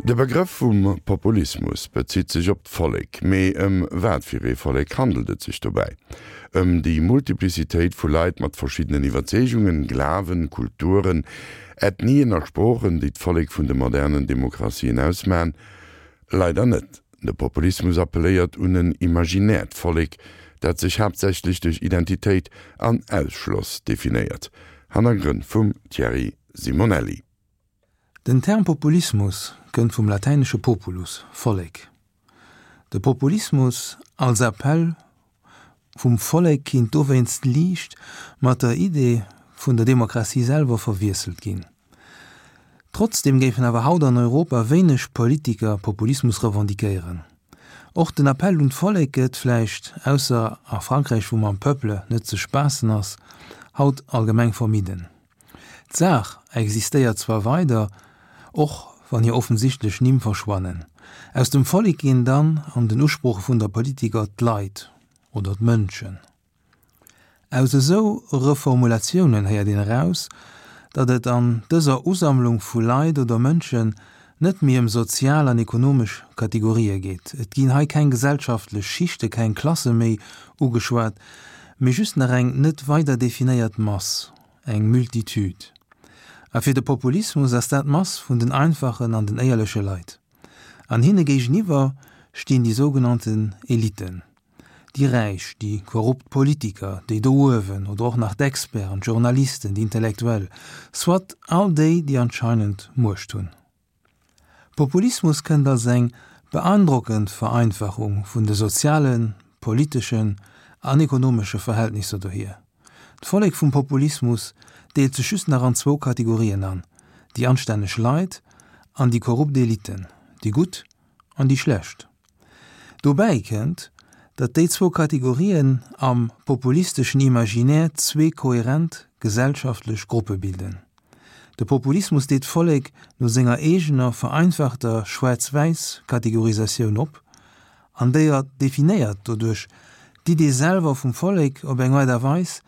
De Begrëff vum Populismus bezitt sech op d'Vollek. Mee ëm wat fir ee Vollek handelt et sech dobäi? Ëm déi Multiplicitéit vu Leit mat verschiddenen Iwwerzeegungen, Glawen, Kulturen, Ethnien a Sproochen, déi d'Vollek vun de modernen Demokratien ausmachen? Leider net. De Populismus appelléiert un en imaginäert Vollek, dat sech haaptsächlech duerch Identitéit an Ausschloss definéiert. Hannergrënn vum Thierry Simonelli. Den Term Populismus kënnt vum latäinesche populus, Vollek. De Populismus als Appell vum Vollek kinnt dowéinst liicht mat der Idee vun der Demokratie selwer verwiesselt ginn. Trotzdeem géifen awer haut an Europa wéineg Politiker Populismus revendiquéieren. Och den Appell un d'Vollek gëtt, vläicht ausser a Frankräich wou mam Peuple net ze spaassen ass, haut allgemeng vermidden. D'Saach existéiert zwar weider, och wann hir offensichtlech Nimm verschwannen. Aus dem Vollek ginn dann an den Usprooche vun der Politiker d'Leit oder d'Mënschen. Aus esou Reformulatiounen héiert een eraus, datt et an dëser Usammlung vu Leit oder Mënschen net méi ëm sozial an ekonomesch Kategorië geet. Et ginn hei keng gesellschaftlech Schichte, keng Klasse méi ugeschwat, mee just nach eng net weider definéiert Mass, eng Multitude. A fir de Populismus ass dat d'Mass vun den einfachen an den éierleche Leit. An hinne géigeniwwer stinn déi sougenannten Eliten, déi Räich, déi korrupt Politiker, déi do uewen, oder och nach d'Experten, d'Journalisten, déi Intellektuell, soit all déi, déi anscheinend Muecht hunn. Populismus kënnt als eng beandrockend Vereinfachung vun de sozialen, politeschen an ekonomesche Verhältnisser dohier. D'Vollek vum Populismus deelt sech just nach an zwou Kategorien an, déi anstänneg Leit an déi korrupt Eliten, déi Gutt an déi Schlecht. Dobäi kënnt, datt déi zwou Kategorien am populisteschen Imaginaire zwee kohärent gesellschaftlech Gruppe bilden. De Populismus deet d'Vollek no senger eegener vereinfachter Schwaarz-Wäiss-Kategorisatioun op an déier definéiert doduerch d'Idee selwer vum Vollek op eng Aart a Weis,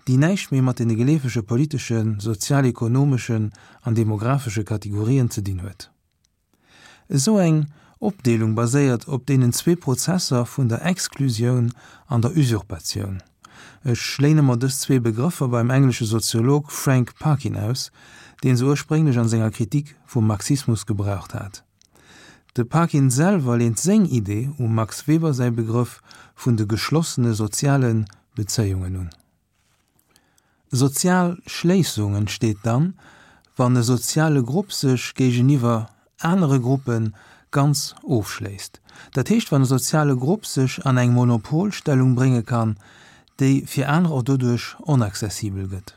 déi näischt méi mat deene geleefege politeschen, sozial-ekonomeschen an demographesche Kategorien ze dinn huet. Esou eng Opdeelung baséiert op deenen zwee Prozesser vun der Exklusioun an der Usurpatioun. Ech léine mer dës zwee Begrëffer beim englesche Soziolog Frank Parkin aus, deen se ursprénglech an senger Kritik vum Marxismus gebraucht hat. De Parkin selwer leent seng Idee um Max Weber säi Begrëff vun de geschlossene soziale Bezéiungen un. Sozial Schléissung entsteet dann, wann e soziale Grupp sech géigeniwwer anere Gruppe ganz ofschléisst. Dat heescht, wann e soziale Grupp sech an eng Monopolstellung brénge kann, déi fir aner och doduerch onaccessibel gëtt.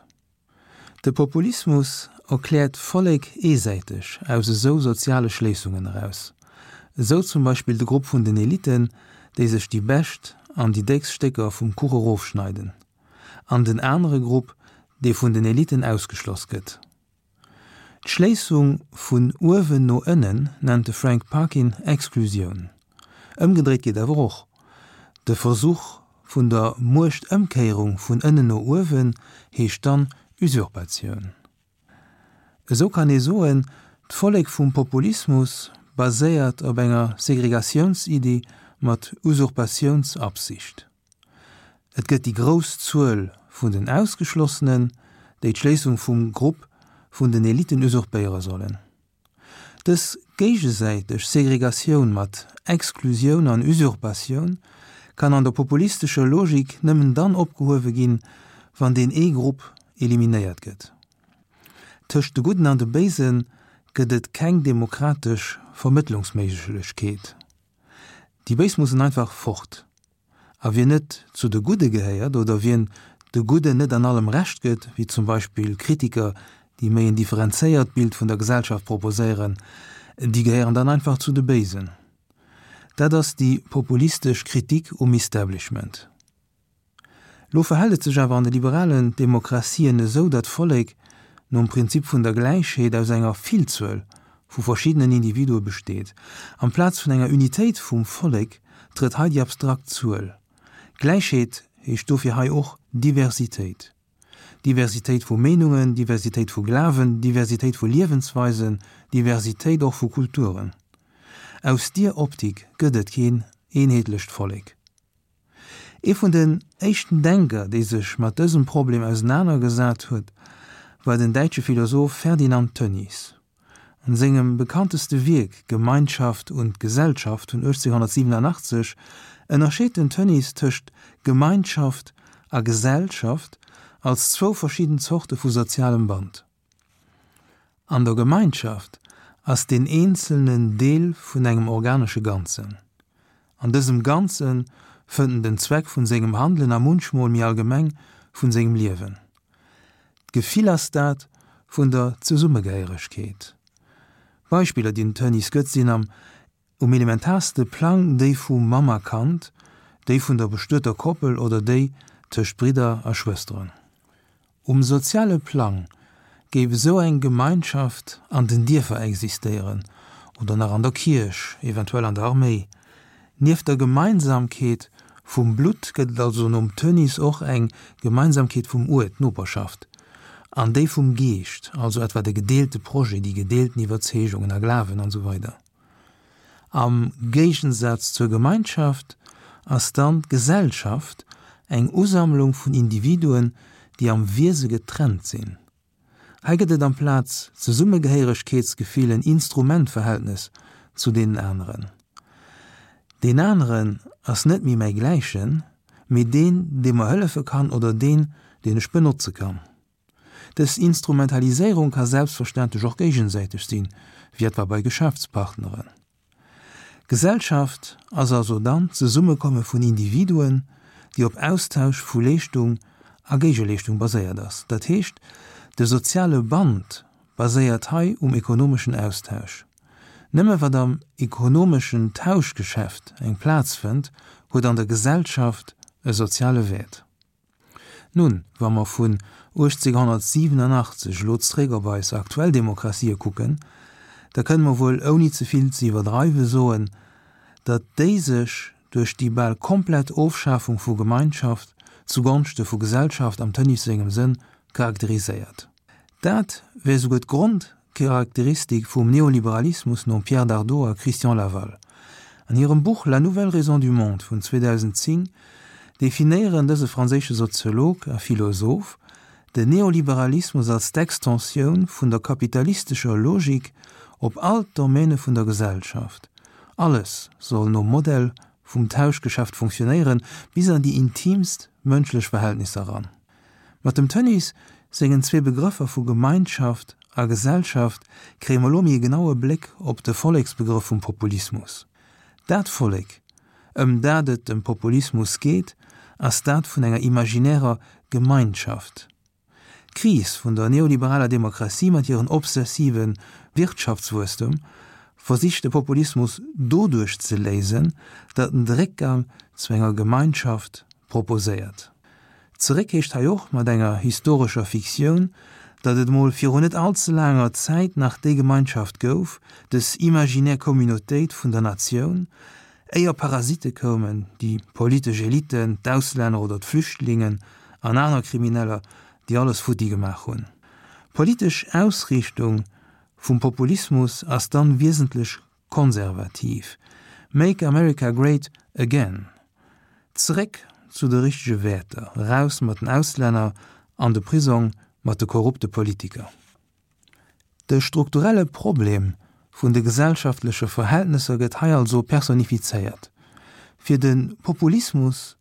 De Populismus erkläert d'Vollek eesäiteg aus esou soziale Schléissungen eraus. Esou zum Beispill de Grupp vun den Eliten, déi sech déi bescht an déi déckst Stécker vum Kuch erofschneiden. An den anere Grupp, dee vun den Eliten ausgeschloss gëtt. D'Schléissung vun uewen no ënnen nennt de Frank Parkin Exklusioun. Ëmgedréit geet awer och. De Versuch vun der Muechtëmkéierung vun ënnen no uewen heescht dann Usurpatioun. Esou kann ee soen, d'Vollek vum Populismus baséiert op enger Segregatiounsiddi mat Usurpatiounsabsicht. Et gëtt déi grouss Zuel vun den Ausgeschlossenen, déi d'Schléissung vum Grupp vun den Eliten usurpéiere sollen. Dës géigesäiteg Segregatioun mat Exklusioun an Usurpatioun kann an der populistescher Logik nëmmen dann opgehuewe ginn, wann deen ee Grupp eliminéiert gëtt. Tëscht de Gudden an de Béise gëtt et keng demokratesch Vermëttlungsméiglechkeet. Déi Béis mussen einfach fort. A wien net zu de Gudde gehéiert oder wien de Gudden net an allem Recht gëtt, wéi zum Beispill Kritiker, déi méi en differenzéiert Bild vun der Gesellschaft proposéieren, déi gehéieren dann einfach zu de Béisen. Dat ass déi populistesch Kritik um Establishment. Lo verhält et sech awer an de liberalen Demokratien esou, datt d'Vollek nom Prinzip vun der Gläichheet aus enger Villzuel vu verschiddenen Individue besteet. Amplaz vun enger Unitéit vum Vollek trëtt hei déi abstrakt Zuel. Gläichheet heescht dofir hei och Diversitéit. Diversitéit vu Meenungen, Diversitéit vu Glawen, Diversitéit vu Liewensweisen, Diversitéit och vu Kulturen. Aus dier Optik gëtt et keen eenheetlecht Vollek. Ee vun den éischten Denker, dee sech mat dësem Problem ausenanergesat huet, war den däitsche Philosoph Ferdinand Tönnies. An sengem bekannteste Wierk Gemeinschaft und Gesellschaft vun 1887 ënnerscheet den Tönnies tëscht Gemeinschaft a Gesellschaft als zwou verschidden Zorte vu sozialem Band. An der Gemeinschaft ass deen Eenzelnen Deel vun engem organesche Ganzen. An dësem Ganze fënnt en den Zweck vun sengem Handelen a munchmol méi allgemeng vun sengem Liewen. D'Gefill ass dat vun der Zesummegehéieregkeet. Beispiller, déi den Tönnies gëtt, sinn am Um elementaarste Plang déi vu Mamm a Kand, déi vun der bestueter Koppel oder déi tëscht Bridder a Schwësteren. Um soziale Plang géif esou eng Gemeinschaft an den Dierfer existéieren oder nach an der Kierch, eventuell an der Arméi. Nieft der Gemeinsamkeet vum Blutt gëtt et also nom Tönnies och eng Gemeinsamkeet vum Uert, d'Noperschaft, an déi vum Geescht, also etwa de gedeelte Projet, déi gedeelten Iwwerzeegungen a Glawen an esou weider. Am Géigensaz zur Gemeinschaft ass dann d'Gesellschaft eng Usammlung vun Individuen, déi am Wiese getrennt sinn. Hei gëtt et amplaz Zesummegehéieregkeetsgefill en Instrumentverhältnes zu deenen aneren. Deen aneren ass net méi mäi Gläichen, mee deen, dee mer hëllefe kann oder deen, deen ech benotze kann. Dës Instrumentaliséierung ka selbstverständlech och géigesäiteg sinn, wéi etwa bei Geschäftspartneren. Gesellschaft ass also dann d'Zesummekomme vun Individuen, déi op Austausch vu Leeschtung a Géigeleeschtung baséiert ass. Dat heescht, de soziale Band baséiert hei um ekonomeschen Austausch. Nëmme wat am ekonomeschen Tauschgeschäft eng Plaz fënnt, huet an der Gesellschaft e soziale Wäert. Nun, wa mer vun 1887 elo zréck op eis aktuell Demokratië kucken, da kënne mer wuel ouni ze vill ze iwwerdreiwe soen, datt déi sech duerch déi bal komplett Ofschafung vu Gemeinschaft zugonschte vu Gesellschaft am Tönnies sengem Sënn charakteriséiert. Dat wär souguer d'Grond Charakteristik vum Neoliberalismus nom Pierre Dardot a Christian Laval. An hirem Buch La nouvelle raison du monde vun 2010 definéieren dëse franséische Soziolog a Philosoph den Neoliberalismus als d'Extensioun vun der kapitalistescher Logik op all d'Domaine vun der Gesellschaft. Alles soll nom Modell vum Tauschgeschäft funktionéieren, bis an déi intiimst mënschlech Verhältnisser eran. Mat dem Tönnies sengen zwee Begrëffer vu Gemeinschaft a Gesellschaft kréie mer elo méi e genaue Bléck op de Volleksbegrëff vum Populismus. Dat Vollek, ëm dat et dem Populismus geet, ass dat vun enger imaginärer Gemeinschaft. D'Kris vun der neoliberaler Demokratie mat hiren obsessive Wirtschaftswuesstem versicht de Populismus doduerch ze léisen, datt en de Réckgang zu enger Gemeinschaft proposéiert. Zeréck heescht hei och mat enger historescher Fiktioun, datt et emol virun net all ze laanger Zäit nach déi Gemeinschaft gouf, dës imaginär Communautéit vun der Natioun, éier Parasitte koumen, déi politesch Eliten, d'Auslänner oder d'Flüchtlingen an aner Krimineller, déi alles futti gemaach hunn. D'politesch Ausriichtung vum Populismus ass dann wiesentlech Konservativ, Make America Great Again, zeréck zu de richtege Wäerter, eraus mat den Auslänner, an de Prisong mat de korrupte Politiker. De strukturelle Problem vun de gesellschaftleche Verhältnesser gëtt hei also personifizéiert. Fir de Populismus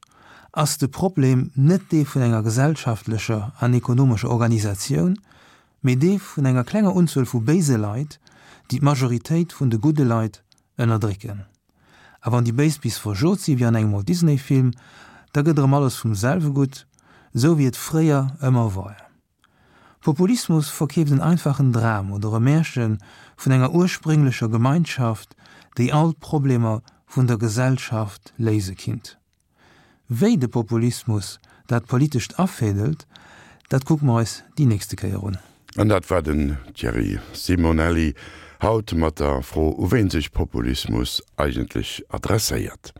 ass de Problem net dee vun enger gesellschaftlecher an ekonomescher Organisatioun, mee dee vun enger klenger Unzuel vu béise Leit, déi d'Majoritéit vun de gudde Leit ënnerdrécken. A wann déi Béis bis verjot si wéi an engem Walt Disney Film, da gëtt erëm alles vum selwe gutt, esou wéi et fréier ëmmer war. Populismus verkeeft en einfachen Dram oder e Märche vun enger ursprénglecher Gemeinschaft, déi all d'Problemer vun der Gesellschaft léise kinnt. Wéi de Populismus dat Politescht afädelt, dat kucke mer eis déi nächste Kéier un. An dat war den Thierry Simonelli, haut mat der Fro, u ween sech Populismus eigentlech adresséiert.